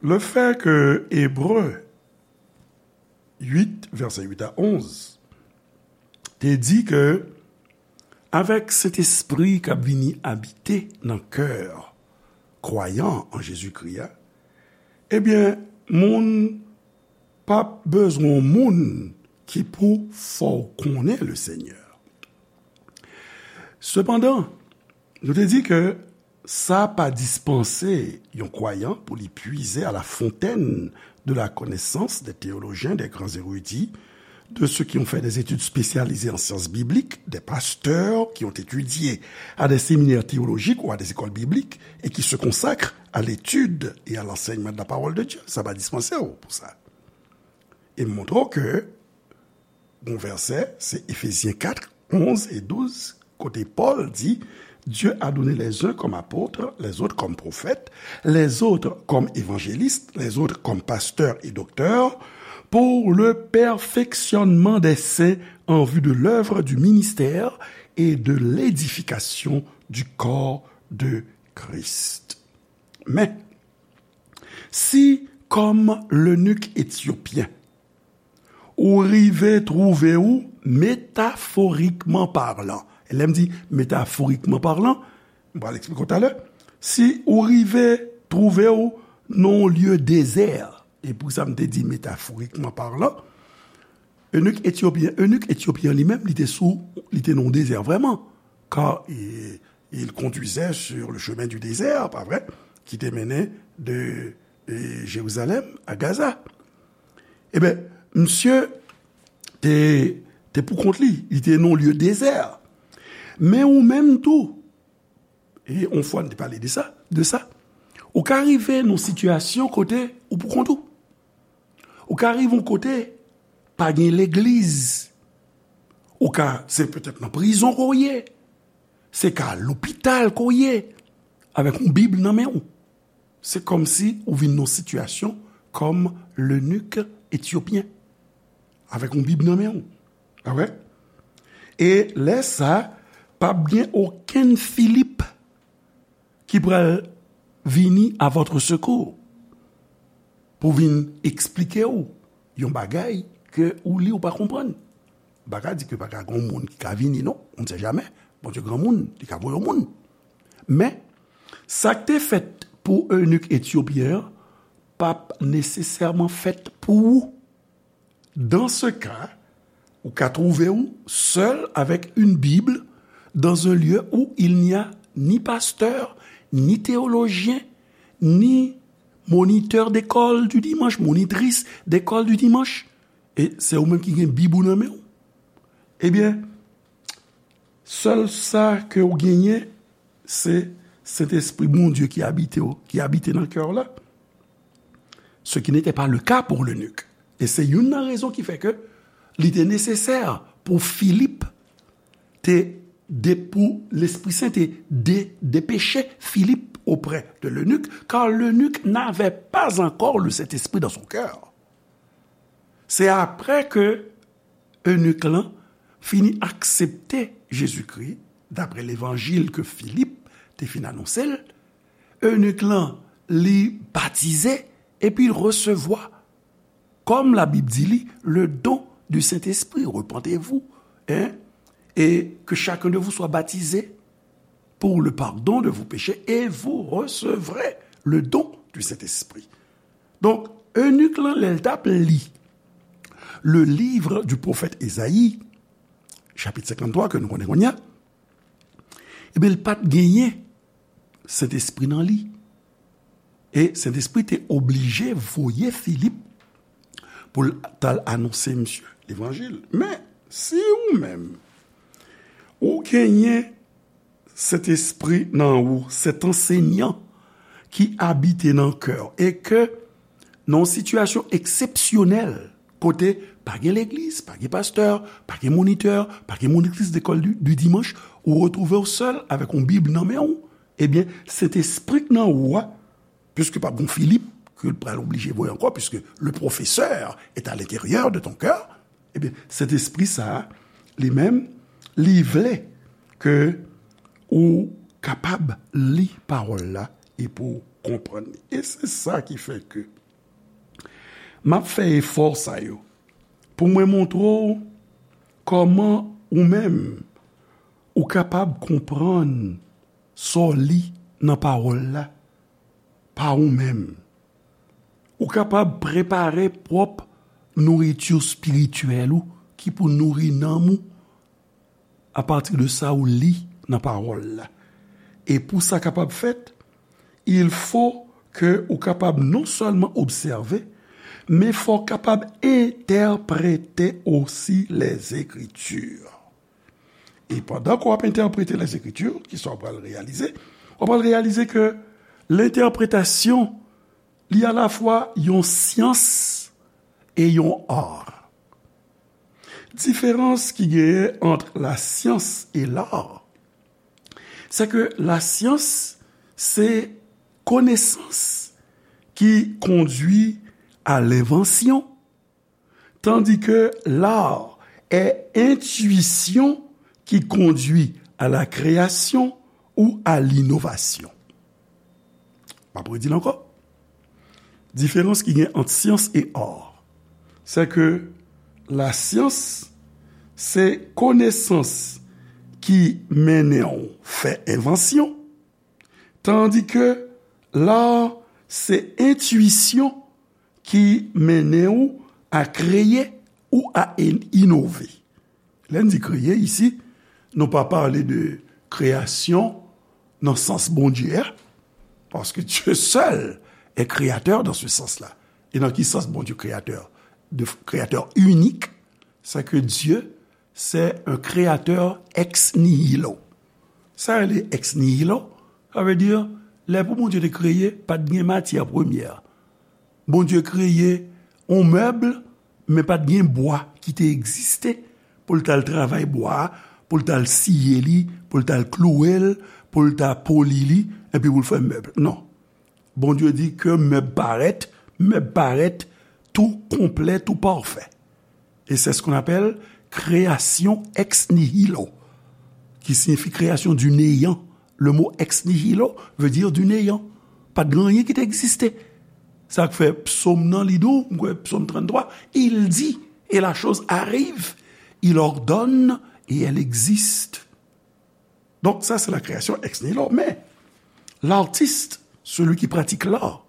le fè ke Ebre uit, vèsè uit a onz, te di ke avèk Sentespri k ap vini abite nan kè kwayan an Jezikri a, ebyen, moun p ap bezwen yon moun ki pou fè w konnen le Senyè. Sepandan, nou te di ke sa pa dispanse yon kwayan pou li puiser à la fontaine de la connaissance des théologiens, des grands érudits, de ceux qui ont fait des études spécialisées en sciences bibliques, des pasteurs qui ont étudié à des séminaires théologiques ou à des écoles bibliques et qui se consacrent à l'étude et à l'enseignement de la parole de Dieu. Sa pa dispanse w pou sa. E montre w ke gon vèsè, se Efezyen kat, onz e douz, kote Pòl di, Dieu a donné les uns comme apôtres, les autres comme prophètes, les autres comme évangélistes, les autres comme pasteurs et docteurs, pour le perfectionnement des saints en vue de l'œuvre du ministère et de l'édification du corps de Christ. Men, si, kòm lenik etyopyen, ou rive twouve w, metaforikman palan, e lè m di metaforikman palan, m pral eksplike w talè, si ou rive twouve w nan yon lye dezè, e pou sa m te di metaforikman palan, enik etyopyen, enik etyopyen li menm, li te sou, li te nan yon dezè vrèman, car il, il conduisait sur le chemin du désert, pa vre, ki te mennen de, e, Jerizalèm a Gaza. Ebyen, misye te, te pou kont li, li te nan yon lye dezè. Men ou menm tou, e yon fwa n te pale de sa, de sa, ou ka rive nan yon sitiyasyon kote ou pou kont ou. Ou ka rive yon kote pa gen legliz. Ou ka, se petèt nan prizon ke w ye. Se ka lopital ke w ye. Avèk yon Bib nan men w. Se kòmsi ou vin nan yon sitiyasyon kòm lenik etyopyen. Avèk yon Bib nan men w. Pa vre? E lè sa, p ap gen okenn Filip ki pral vini à votre secours pou vin eksplike w yon bagay ke ou li ou pa konprann. M pa ka di ke pa ka gen yon moun ki ka vini, non, on ne sait jamais. Bondye granmoun, li ka voye yon moun. Men, sa k te fèt pou enik etyopyen an p ap nesesèman fèt pou ou. Dans ce cas, ou ka twouve w sèl avèk une Bible dans un lieu où il n'y a ni pasteur, ni théologien, ni moniteur d'école du dimanche, monitrice d'école du dimanche. E se ou menm ki gen Bib ou nan men w. Ebyen, sèl sa ke w genyen, se Sentespri Bondye ki abite w, ki abite nan kè w la. Ce qui n'était pas le cas pour l'eunuque. E se youn nan rezon ki fè ke li te nesesè pou Filip te de, pou Lespri Sen te de, depeche Filip auprès de l'eunuque, car l'eunuque n'avait pas encore le Saint-Esprit dans son cœur. Se apre ke enik lan fini aksepte Jezikri, dapre levanjil ke Filip te fin anonse l, enik lan, li batize epi l resevwa, kòm Labib di li, le don du Saint-Esprit, repentez-vous, hein, et que chacun de vous soit baptisé pour le pardon de vos péchés et vous recevrez le don du Saint-Esprit. Donk, enik lan, lè l t ap li le livre du prophète Ésaïe, chapit senkanntwa ke nou konnen kounye a, ebyen, l pa t genyen Sentespri nan li. E Sentespri te oblije voye Filip pou l t al anonse misye levanjil. Men, si ou menm, ou genyen Sentespri nan ou, sèt ansenyan ki abite nan kè w, e ke nan yon sitiyasyon eksepsyonèl, kote pa gen legliz, pa gen pastè, pa gen monitè, pa gen monitris lekòl di, di dimanch, ou retwouve w sèl avèk yon Bib nan men w, ebyen, Sentespri k nan ou a, piske p ap gen yon Filip ke l pral oblije voye ankò, puisque le professeur est à l'intérieur de ton cœur, ebyen, Sentespri sa a, li menm, li vle ke ou kapab li pawòl la e pou w konprann li. E se sa ki fè ke m ap fè efò sa yo pou mwen montre w kòman ou menm ou kapab konprann sa w li nan pawòl la pa ou menm. Ou kapab prepare pwòp nouriti espirityèl ou ki pou nouri nanm ou apati de sa ou li nan pawòl la. E pou sa kapab fèt, il faut ke ou kapab non sèlman obsève, men fò w kapab entèprete osi les Écritures. E pandan ke w ap entèprete les Écritures, kisa w pral reyalize? W pral reyalize ke lentèpretasyon, li alafwa yon syans e yon ar. Diferans ki genyen ant la science et l'art, c'est que la science, se konesans ki kondui a lenvansyon, tandis que l'art est intuition qui conduit à la création ou à l'innovation. M ap redi l ankò. Diferans ki gen ant syans e ar, se ke lasyans se konesans ki mennen w fè envansyon, tandis que l'art se entwisyon ki mennen w a kreye ou a in-, inove. Lè n di kreye isi, nou pa pale de kreyasyon nan sans Bondye a, paske Dieu seul est créateur dans ce sens-là. E nan ki sans Bondye créateur? De créateur unique, c'est que Dieu, c'est un créateur ex nihilo. Sa rele ex nihilo, sa vle di, lè pou Bondye te kreye, pa t gen matyè premyè. Bondye kreye yon mèb, men pa t gen bwa ki te egziste pou l t al travay bwa a, pou l t al siye li, pou l t al klouwe l, pou l ta poli li, epi pou l fè mèb. Non. Bondye di ke mèb parèt, mèb parèt tou konplè, tou pafè. Et c'est ce qu'on appelle création ex nihilo, qui signifie création du néant. Le mot ex nihilo veut dire du néant. Pa t gen anyen ki te egziste. Sa k fè psaume nan li di w, m kwè psaume trannntwa, il dit, et la chose arrive, il ordonne, et elle existe. Donc, ça, c'est la création ex nihilo. Mais l'artiste, celui qui pratique l'art,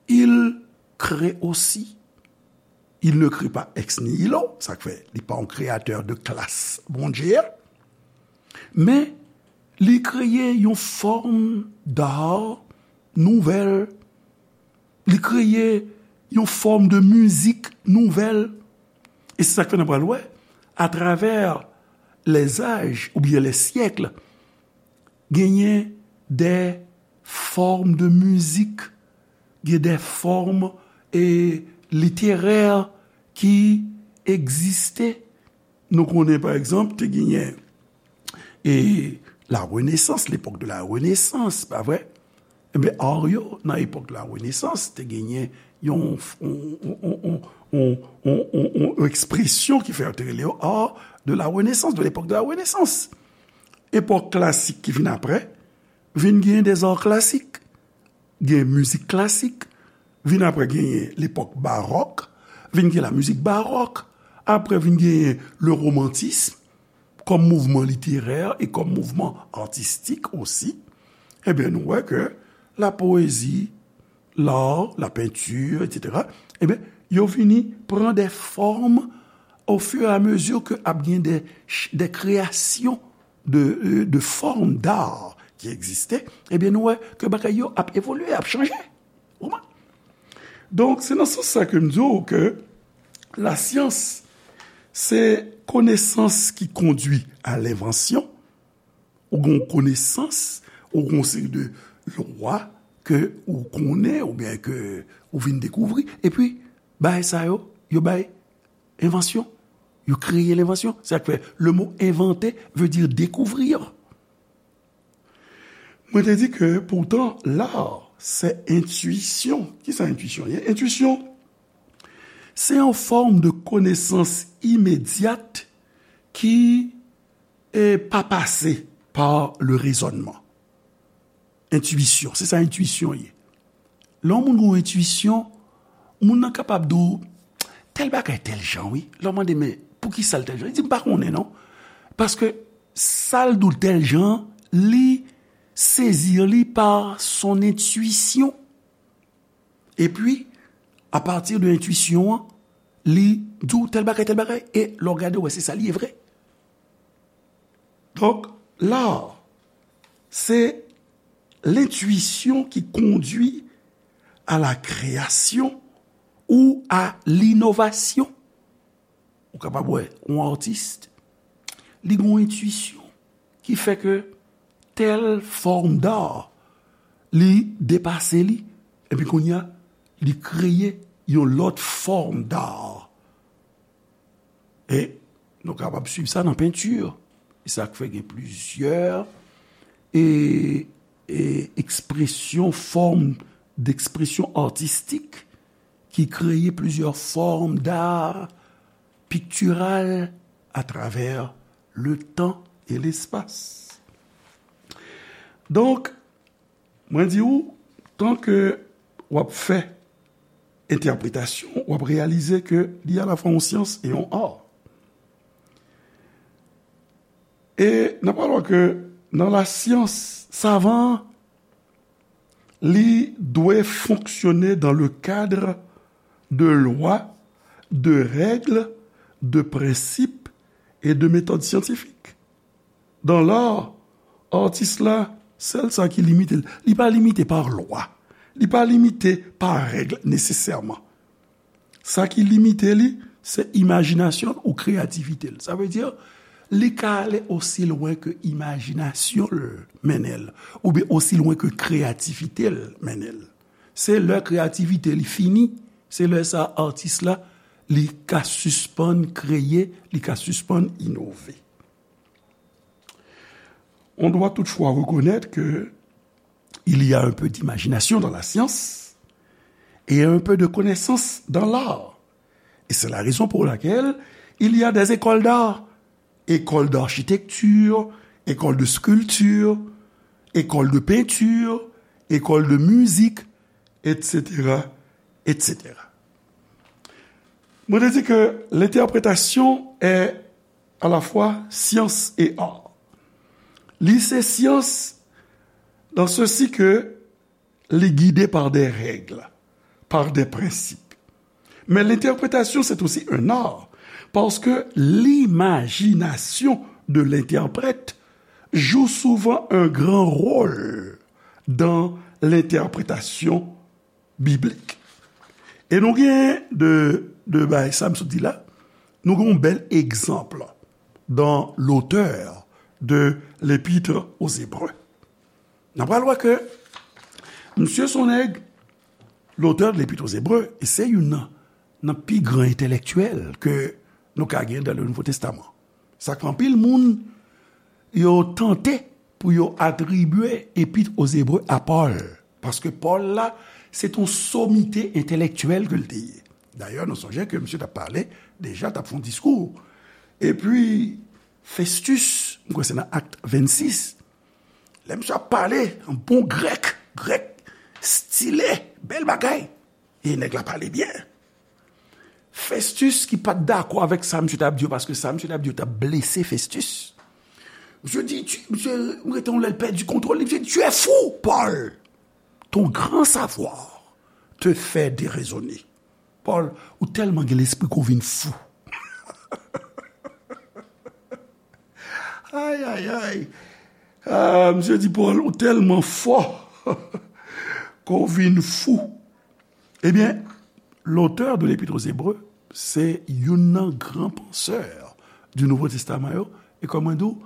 il crée aussi. Il ne crée pas ex nihilo, sa k fè li pa yon kreyatè de klas Bondye a, men li kreye yon fòm d'art nouvèl, li kreye yon fòm de mizik nouvèl. E se sa k fè n ap pral wè, atravè les âges oubyen les siècles, genyen de fòm de mizik, gen de fòm e literè ki egziste. Nou konnen, pa egzanp, te genyen e la Renaissance, l'époque de la Renaissance, pa vre? Enben, ar yo, nan epòk la Renaissance, te genyen yon, yon, yon ekspresyon ki fè yo te rele yo art de la Renaissance, de l'époque de la Renaissance. Epòk klasik ki vin apre, vin gen des arts classiques, gen mizik klasik, vin apre genyen lepòk baròk, vin gen la mizik baròk, apre vin genyen le romantisme, kòm mouvman literè e kòm mouvman atistik osi, ebyen, nou wè ke la poésie, l'art, la peinture, et cetera, ebyen, yo vini pran de fòm au fur et à mesure ke ap gen de, de kreyasyon de, de fòm d'art ki egziste, ebyen, nou wè ke bagay yo ap evolye, ap chanje. Ou konprann? Donk, se nan sans sa ke m di w ke lasyans, se konesans ki kondui a lenvansyon. Ou gen yon konesans, ou gen yon seri de lwa ke ou konnen oubyen ke ou vin dekouvri. Epi, bagay sa yo, yo bay envansyon. Yo kreye lenvansyon. Sa k fè le mot inventer veut dire découvrir. Mwen te di ke poutan, l'art, se entwisyon. Kisa entwisyon ye? Entwisyon, se yon fòm de konesans imedyat ki e pa pase pa le rezònman. Entwisyon, se sa entwisyon ye. Lè yon moun gen yon entwisyon, moun nan kapab di w, tèl bagay tèl jan, wi. Lè w mande, men, poukisa l tèl jan? Li di, m pa konnen, non. Paske sa l di w tèl jan, li sezi li pa son entwisyon. Epi, apati de entwisyon an, li di w tèl bagay, tèl bagay, e lè w gade, w wè se sa li ye vre. Donk, l'art, c'est l'intuition qui conduit à la création ou à l'innovation. Ou kapab wè, yon atis, li gen yon entwisyon ki fè ke tèl fòm d'art, li depase li, epi kounye a, li kreye yon lòt fòm d'art. E nou kapab swiv sa nan penti. E sa k fè gen plizyè e, e ekspresyon, fòm d'expression artistique ki kreye plizyè fòm d'art pictural à travers le temps et l'espace. Donk, mwen di w, tan ke w ap fè entèpretasyon, w ap reyalize ke li alafwa yon syans e yon ar. E n ap pale ke nan lasyans, savan an, li dwe fonksyone dans le cadre de lois, de règles, de principes et de méthodes scientifiques. Dans l'art, atis la, sèl sa ki limite l, li pa limite pa lwa, li pa limite pa règ nesesèman. Sa ki limite li, se imajinasyon l ou kreyativite l. Sa vle di, li ka ale osi lwen ke imajinasyon l mennen l, oubyen osi lwen ke kreyativite l mennen l. Se lè kreyativite li fini, se lè sa atis la, li ka sispann kreye, li ka sispann inove. On doit toutefois reconnaître que il y a un peu d'imagination dans la science et un peu de connaissance dans l'art. Et c'est la raison pour laquelle il y a des écoles d'art, écoles d'architecture, écoles de sculpture, écoles de peinture, écoles de musique, et cetera, et cetera. Mwen te di ke l'interprétation est à la fois science et art. Li se syans dans ceci que li gide par des règles, par des principes. Mais l'interprétation, c'est aussi un art, parce que l'imagination de l'interprète joue souvent un grand rôle dans l'interprétation biblik. E nou gen de, de bagay sa m sot di la, nou gen yon bèl egzanp dans l'auteur de l'Épître aux Hébreux. N ap pral wè ke msye se yon nèg, l'auteur de l'Épître aux Hébreux, e se youn nan, nan pi gran entèlektyèl ke nou ka gen dans le Nouveau Testament. Sa k fè anpil moun, yo tante pou yo atribye Épître aux Hébreux a Pòl. Paske Pòl la, se t on somite entèlektyèl ke l te ye. Dayè, nou sonje ke misye t ap pale, deja t ap fè yon diskou. Epi, Festus, m kwè se nan Akt vennsis, lè misye ap pale, yon bon grèk, grèk, stile, bèl bagay. E nèg la pale byen. Festus ki pa t dakò avèk sa misye t ap di yo, paske sa misye t ap di yo t ap blese Festus. Misye di, tu, misye rete yon lè l pèdi kontwòl li, misye di, tu es fou, Paul. Ton grand savoir te fait déraisonner. Pòl, ou tèlman gen lespri ke w vin fou. Ay, ay, ay. Ah, misye di, Pòl, ou tèlman fò ke w vin fou. Ebyen, l'auteur de l'Épître aux Hébreux, se youn nan gran pansè du Nouveau Testament yo. E kòm mwen di w,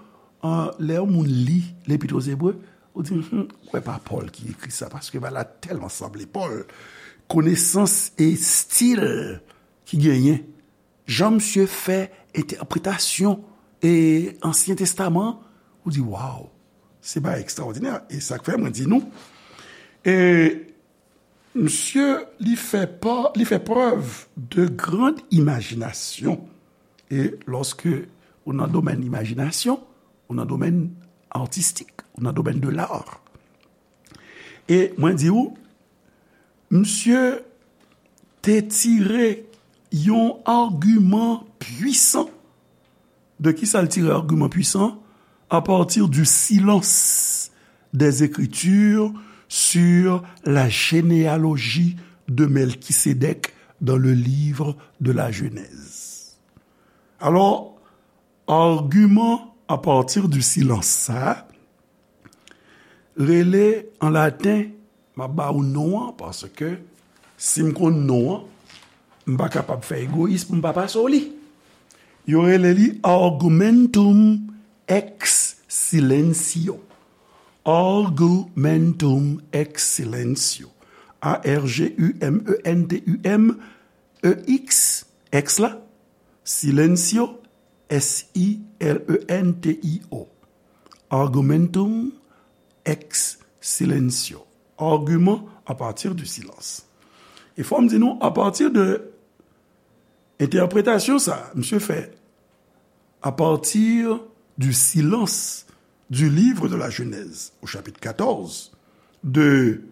an, lè yon moun li L'Épître aux Hébreux, ou di, hmm, ou kwè pa Pòl ki ekri sa, paske bagay la tèlman sanble Pòl. Konesans e stil ki genyen, jan misye fè entèpretasyon e Ansyen Testaman, ou di, waw, se bagay ekstraòdinè. E sa k fè mwen di nou, e misye, li fè pa, li fè prèv de grande imagination. E lòske ou nan domèn imajinasyon, ou nan domèn atistik, ou nan domèn de l'art. E mwen di w, misye te tire yon agiman pwisan. De ki sa l tire agiman pwisan? À partir du silence des Écritures sur la généalogie de Melchisédek dans le livre de la Genèse. Alò, agiman à partir du silence sa a, rele an laten, m ap ba ou non an, paske si m konn non an, m pa kapab fè egoyis pou m pa pase w li. Yo rele li argumentum ex silentio. Argumentum ex silentio. A R G U M E N T U M E X, ex la, silentio, S I L E N T I O. Argumentum ex silentio. Argument à partir du silence. E fò m di nou, à partir de entèpretasyon sa, misye fè, à partir du silence du livre de la Genèse, au chapitre quatorze, de,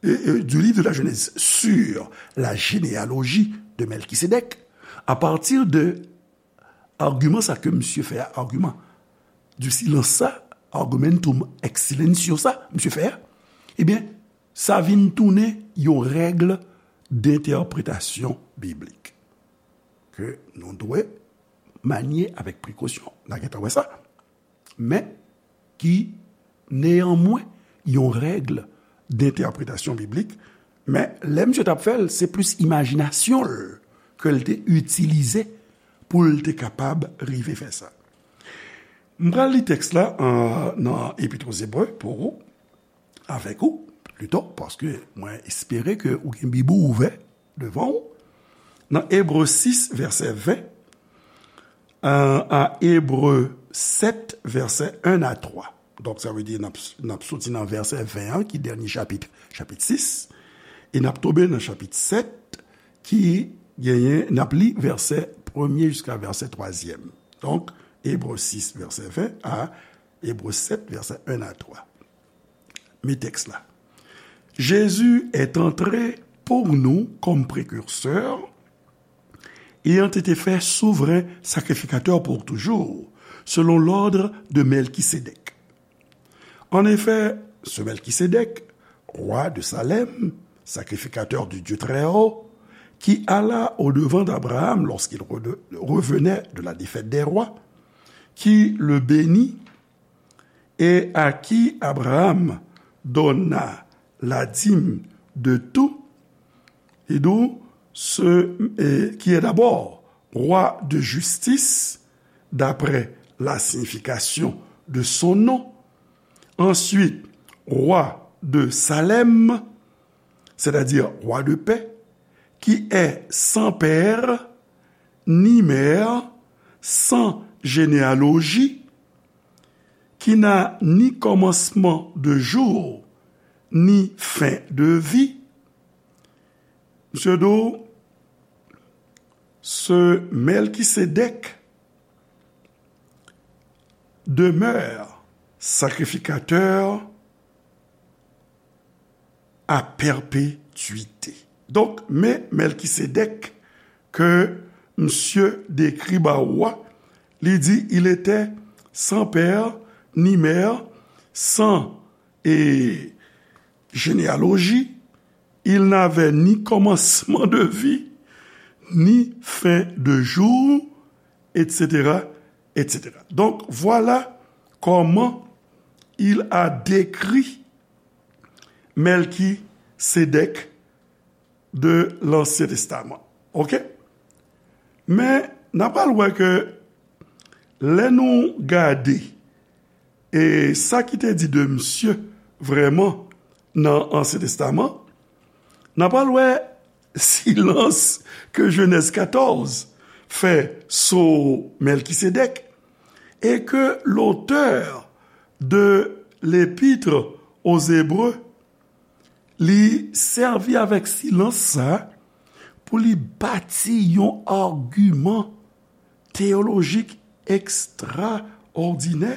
euh, euh, du livre de la Genèse sur la généalogie de Melchisédek, à partir de agiman sa ke misye fè a, agiman du silence sa, argumentum ex silentio sa, misye fè a, ebyen, sa vin tounen yon règ d'entèpretasyon biblik ke nou dwe manye avèk prekosyon. N a gentan wè sa. Men, ki, neyanmwen, yon règ d'entèpretasyon biblik. Men, lè misye t ap fè l, se plis imajinasyon l ke l te itilize pou l te kapab rive fè sa. M pral li tèks la, euh, nan Epit aux Hébreux pou ou, avèk ou, plito, paske mwen espere ke ou gen Bib ou ouvè devan ou. Nan Ebre sis, vèsè ven, euh, a Ebre sèt, vèsè en a twa. Donk, sa vle di, n ap, n ap soti nan vèsè ven an, ki dènye chapit, chapit sis, e n ap tonbe nan chapit sèt, ki genyen, n ap li vèsè premye jiska vèsè twazyèm. Donk, Ebre sis, vèsè ven a Ebre sèt, vèsè en a twa. Men tèks la. Jésus est entré pour nous comme précurseur, ayant été fait souverain sacrificateur pour toujours, selon l'ordre de Melchisédek. En effet, ce Melchisédek, roi de Salem, sacrificateur du Dieu très haut, qui alla au-devant d'Abraham lorsqu'il re-, revenait de la défaite des rois, qui le bénit et à qui Abraham donna la dîme de tout, et donc ce, et qui est d'abord roi de justice, d'après la signification de son nom, ensuite roi de Salem, c'est-à-dire roi de paix, qui est sans père ni mère, sans généalogie, qui n'a ni commencement de jour, ni fin de vie. Misye di w, ce Melchisédek demeure sacrificateur à perpétuité. Donk, men Melchisédek ke misye dekri ba ou a, li di, il était sans père ni mère, sans, et, généalogie, il n'avait ni commencement de vie, ni fin de jour, et cetera, et cetera. Donc, voilà comment il a décrit Melchisédek de l'Ancien Testament. Ok? Men, n a pral wè ke lè nou gade, e sa ki te di de misye vrèman nan Ansyen Testaman, n a pral wè silans ke Jenèz katòz fè sou Mèlkisedèk, e ke l'auteur de l'Épître aux Hébreux, li sèvi avèk silans sa pou li bati yon agiman teyolojik ekstraòdinè.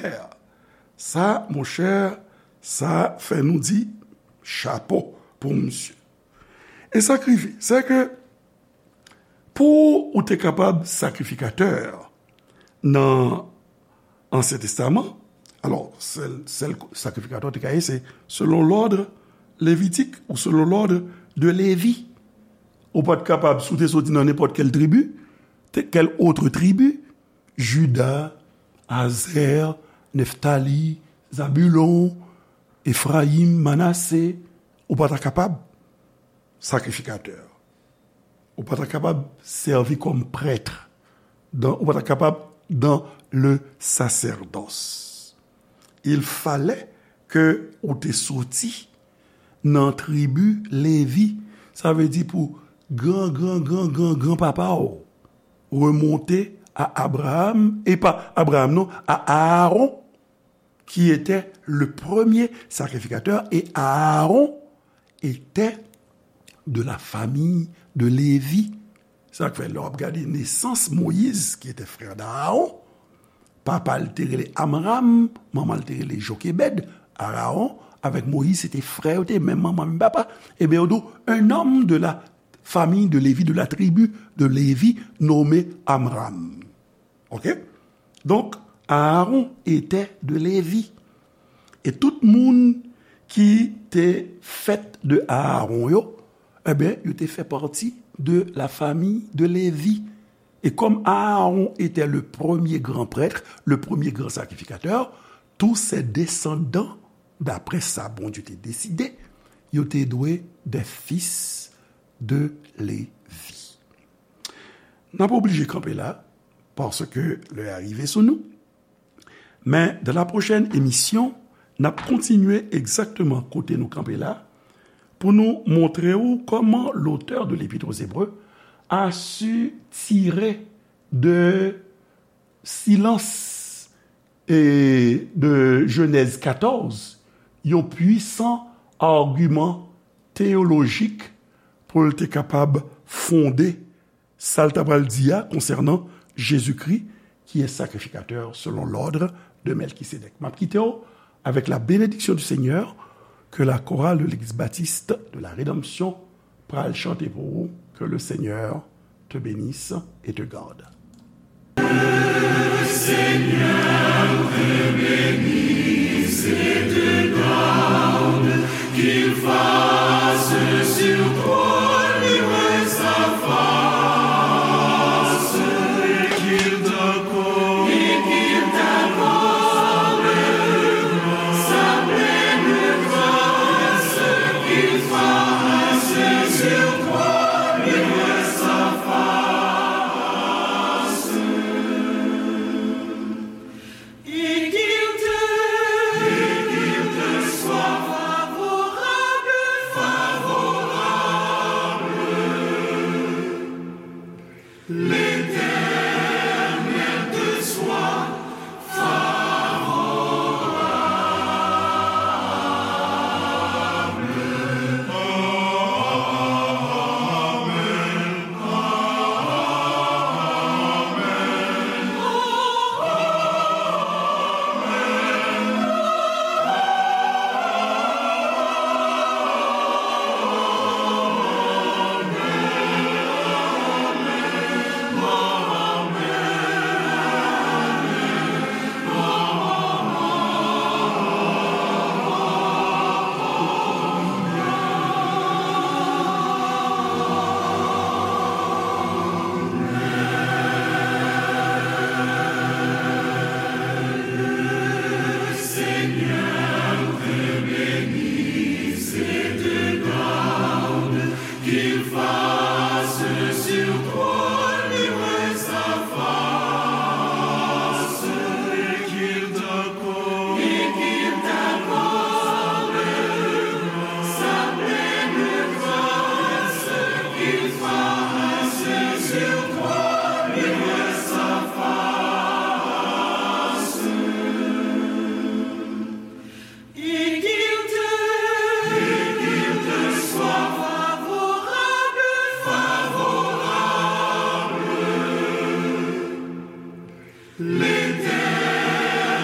Sa, monchè, sa fè nou di, Chapo pou misye. E sa k rive, se ke pou ou te kapab sakrifikatè nan Ansyen Testaman, alò, sèl, sèl sakrifikatè w te ka ye, se selon lòd levitik ou selon lòd de Levi. Ou pa t kapab, si w te soti nan nenpòt kèl tribi, te, kèl otre tribi, Jida, Azè, Neftali, Zabilon, Efrayim, Manase, ou pa ta kapab sakrifikatè. Ou pa ta kapab sèvi kòm prèt. Dan, ou pa ta kapab dans le sacerdoce. Il fallait que ou te soti nan tribi Levi. Sa vle di pou gran, gran, gran, gran, gran papa w remonte a Abraham, e pa Abraham non, a Aaron, qui était le premier sacrificateur, et Aaron était de la famille de Lévi. Sa k fè, lè w ap gade nesans Moyiz, ki te frè d'Aaron, papa l te rele Amram, manman l te rele Jokebèd, Aaron avèk Moyiz, se te frè yo te, menm manman, menm papa. Ebyen, yo di w, un homme de la famille de Lévi, de la tribu de Lévi, nommé Amram. Ok? Donk, Aaron était de Lévi. E tout moun ki te fèt de Aaron yo, ebyen, yo te fè pati de la famille de Lévi. Et comme Aaron était le premier grand prêtre, le premier grand sacrificateur, tous ses descendants, d'après sa Bondye te deside, yo te dwe des fils de Lévi. N ap oblije kanpe la, paske lè a rive sou nou. Men, dans la prochaine émission, n ap kontinye egzakteman kote nou kanpe la, pou nou montre w kòman l'auteur de l'Épître aux Hébreux a su tirer de silence e de Genèse quatorze yon pwisan agiman teyolojik pou l te kapab fonde sa l ta pral di a konsènan Jezikri, qui est sacrificateur selon l'ordre de Melchisédek. M ap kite w avec la bénédiction du Seigneur, que la chorale de l'Église baptiste de la Rédemption pral chante pou ou. Que le Seigneur te bénisse et te garde.